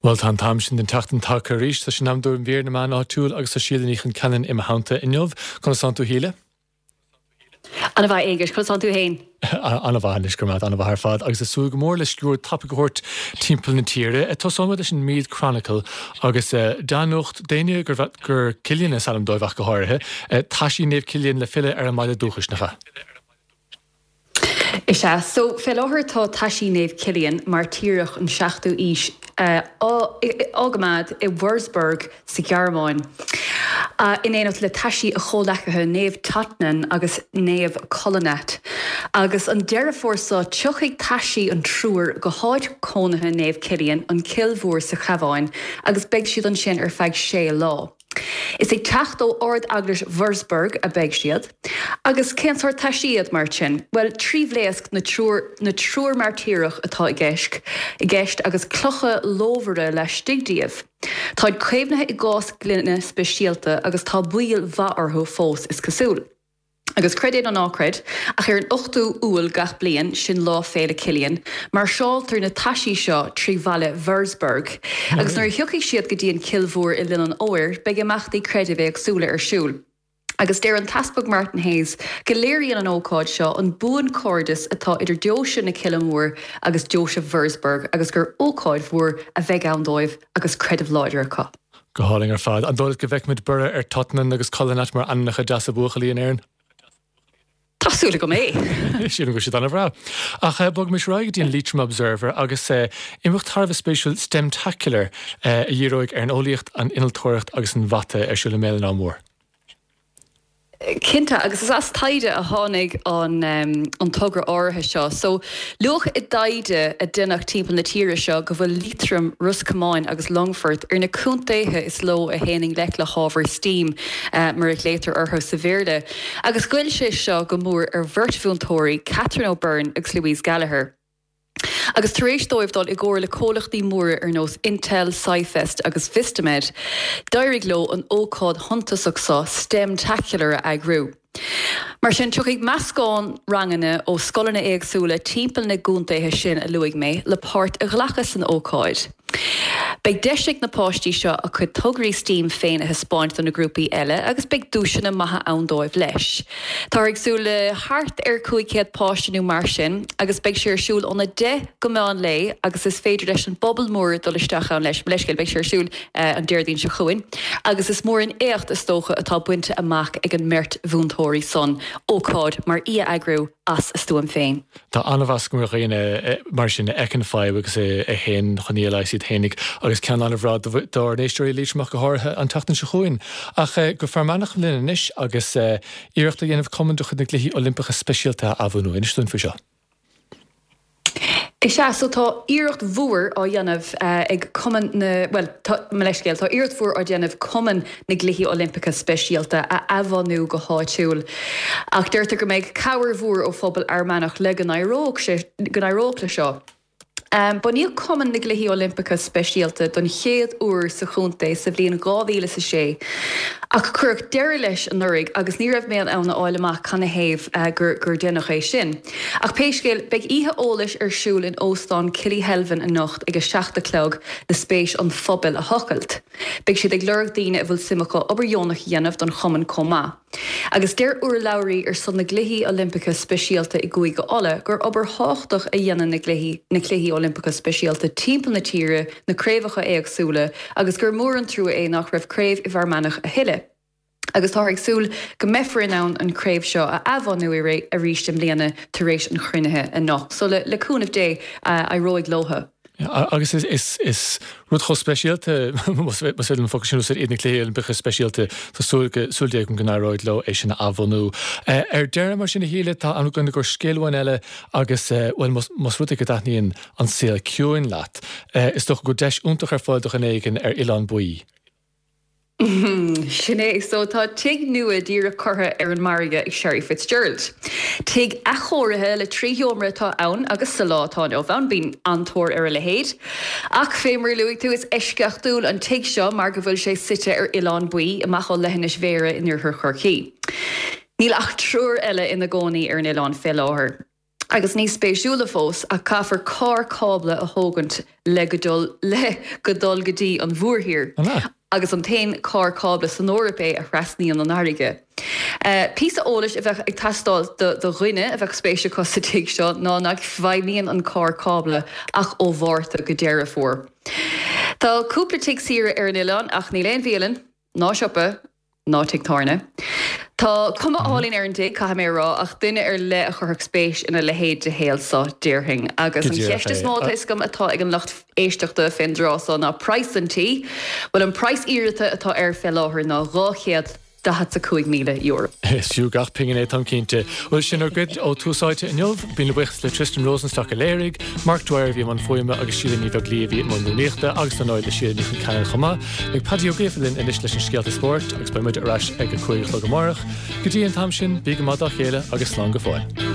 Bhuel, tá an t-am sin den tseachtain tagtha arís. Tá sé in am do mhír na meán áitiúil agus tá Síle Ní Chonceanainn i mo theannta inniu. Conas tánn tú, a Shíle? Ana mhaith, a Aonghuis. Conas tánn tú fhéin? Ana mhaith anois, go raibh maith agat, ana mhaith ar fad. Agus ag súil go mór le sciuird tapaidh a thabhairt timpeall na tíre. Tosóidh muid leis an Meath Chronicle agus dea-nuacht d'éinne gur Cillian is ainm dóibh ach go háirithe. Taisí Naomh Cillian le filleadh ar an mbaile dúchais, nach ea? Is ea. So, fé láthair tá taisí Naomh Cillian, mairtíreach an 7ú aois, á gcoimeád i Wurzburg sa Ghearmáin, in éineacht le taisí a chomhleacaithe Naomh Totnan agus Naomh Kolonat. Agus an Deireadh Fómhair seo tiocfaidh taisí an triúir go háit cónaithe Naomh Cillian, an Cill Mhór sa Chabhán, agus beidh siad ansin ar feadh sé lá. Is ag teacht ó Ard-Eaglais Wurzburg a beidh siad. Agus cén sórt taisí iad, mar sin? Bhuel, tribhlaosc na triúr na triúr mairtíreach atá i gceist i gceist agus clocha lómhara laistigh díobh. Táid caomhnaithe i gcás gloine speisialta agus tá bail mhaith orthu fós, is cosúil. Agus creid é nó ná creid, ach ar an 8ú Iúil gach bliain, sin Lá Féile Cillian, máirseáltar na taisí seo trí bhaile Wurzburg. Agus nuair a thiocfaidh siad go dtí an Cill Mhór i linn an fhómhair, beidh imeachtaí creidimh éagsúla ar siúl. Agus deir an tEaspag Martin Hayes go léiríonn an ócáid seo an buanchairdeas atá idir Deoise na Cille Mór agus Deoise Wurzburg agus gur ócáid mhór a bheidh ann dóibh agus creideamh láidir acu. Go hálainn ar fad. An dóigh leat go bhfeicfimid borradh ar Totnan agus Kolonat mar ainmneacha deasa buachaillí in Éirinn? Tá súil agam é! Sílim go bhfuil siad an-bhreá. Ach bogaimis ar aghaidh go dtí an Leitrim Observer agus imeacht thar a bheith spéisiúil STEMtacular a dhíreoidh ar an eolaíocht, an innealtóireacht agus an mhata ar siúl i mBéal an Átha Mór. Cinnte, agus is as taighde a tháinig an togra áirithe seo. So, luadh i dtaighde a deineadh timpeall na tíre seo go bhfuil Liatroim, Ros Comáin agus Longfort ar na contaetha is ló a théann i ngleic le hábhair steam, mar a ghlaotar orthu sa Bhéarla. Agus ghoill sé seo go mór ar bheirt mhúinteoirí, Catherine O'Byrne agus Louise Gallagher. Agus tar éis dóibh dul i gcomhar le comhlachtaí móra ar nós Intel, SciFest agus Vistamed, d'éirigh leo an ócáid shuntasach seo, STEMtacular, a eagrú. Mar sin, tiocfaidh meascán ranganna ó scoileanna éagsúla timpeall na gcontaetha sin a luaigh mé le páirt a ghlacadh san ócáid. Beidh deis ag na páistí seo a cuid tograí steam féin a thaispeáint do na grúpaí eile agus beidh duaiseanna maithe ann dóibh leis. Táthar ag súil le thart ar 500 páiste nó mar sin agus beidh sé ar siúl óna 10 go meán lae agus is féidir leis an bpobal mór dul isteach ann leis. Mo leithscéal, beidh sé ar siúl an Déardaoin seo chugainn agus is mór an éacht is dócha atá bainte amach ag an mbeirt mhúinteoirí san, ócáid mar í a eagrú as a stuaim féin. Tá an-mheas agam ar dhaoine mar sin a fheiceann fadhb agus a théann chun í a leigheas iad fhéinig agus ceann an-bhreá dár n-éisteoirí i Liatroim ach go háirithe an tseachtain seo chugainn. Ach go Fear Manach linn anois agus iarracht á dhéanamh cumann de chuid na gCluichí Oilimpeacha Speisialta a athbhunú. Inis dúinn faoi seo. Is ea, so tá iarracht mhór á dhéanamh ag Cumann na, bhuel, tá, mo leithscéal, tá iarracht mhór á déanamh Cumann na gCluichí Oilimpeacha Speisialta a athbhunú go háitiúil. Ach deirtear go mbeidh cabhair mhór ó phobal Fhear Manach le go n-éireodh sé, go n-éireodh le seo. Bunaíodh Cumann na gCluichí Oilimpeacha Speisialta don chéad uair sa chontae sa bhliain 2006 ach cuireadh deireadh leis anuraidh agus ní raibh mé in ann a fháil amach canathaobh gur gur deineadh é sin. Ach pé scéal, beidh oíche eolais ar siúl in Óstán Killyhelvin anocht ag a 7 a chlog le spéis an phobail a thochailt. Beidh siad ag lorg daoine a bhfuil suim acu obair dheonach a dhéanamh don chumann chomh maith. Agus deir urlabhraí ar son na gCluichí Oilimpeacha Speisialta i gCúige Uladh gur obair thábhachtach a dhéanann na gcluichí na Cluichí Oilimpeacha Speisialta timpeall na tíre, na craobhacha éagsúla, agus gur mór an trua é nach raibh craobh i bhFear Manach a thuilleadh. Agus táthar ag súil go mbeifear in ann an chraobh seo a athbhunú arís i mbliana tar éis an chruinnithe anocht. So le cúnamh Dé, éireoidh leothu. Agus is rud chomh speisialta, más féidir liom an focal sin a úsáid, iad na Cluichí Oilimpeacha Speisialta, tá súil súil Dé agam go n-éireoidh leo é sin a athbhunú. Ar deireadh, mar sin, a Shíle, tá am againn i gcomhair scéal amháin eile agus, bhuel, más rud é go dtaitníonn an saol ciúin leat, is dócha go bhfuil deis iontach ar fáil do dhuine éigin ar Oileán Baoi. Sin é. So tá tigh nua díreach curtha ar an margadh ag Sherry Fitzgerald. Tigh athchóirithe le 3 sheomra atá ann agus sa lá atá inniu ann bíonn an-tóir ar a leithéid. Ach fé mar a luaigh tú, is eisceachtúil an tigh seo mar go bhfuil sé suite ar Oileán Baoi, amach ó leithinis Bhéarra in oirthear Chorcaí. Níl ach triúr eile ina gcónaí ar an oileán fé láthair. Agus níos spéisiúla fós, ach caithfear carr cábla a thógaint le go dul le go dul go dtí an mhórthír. Agus an t-aon carr cábla san Eoraip é a thrasnaíonn an fharraige. Píosa eolais a bheadh ag teastáil do do dhuine a bheadh spéis acu sa tigh seo ná nach bhfeidhmíonn an carr cábla ach ó Mhárta go Deireadh Fómhair. Tá cúpla tigh saoire ar an oileán ach níl aon bhialann, ná siopa, ná tigh tábhairne. Tá cuma álainn ar an dtigh, caithfidh mé a rá, ach duine ar leith a chuirfeadh spéis ina leithéid de shaol so, déarfainn. Agus an cheist is mó atá fhios agam atá ag an lucht éisteachta fén dtráth so ná praghas an tí. Bhuel, an praghas iarrata atá air fé láthair ná €245,000. Is fiú gach pingin é, táim cinnte. Bhuel, sin ár gcuid ó Tús Áite inniu. Míle buíochas le Tristan Rosenstock a léirigh, Mark Dwyer a bhí i mbun fuaime agus Síle Ní Bheaglaoí a bhí i mbun rúnaíochta agus dar ndóigh le Síle Ní Chonceanainn chomh maith. Beidh Paddy Ó Gríofa linn anois leis an scéalta spóirt agus beidh muid ar ais ag a 5 a chlog amárach. Go dtí an t-am sin, bí go maith dá chéile agus slán go fóill.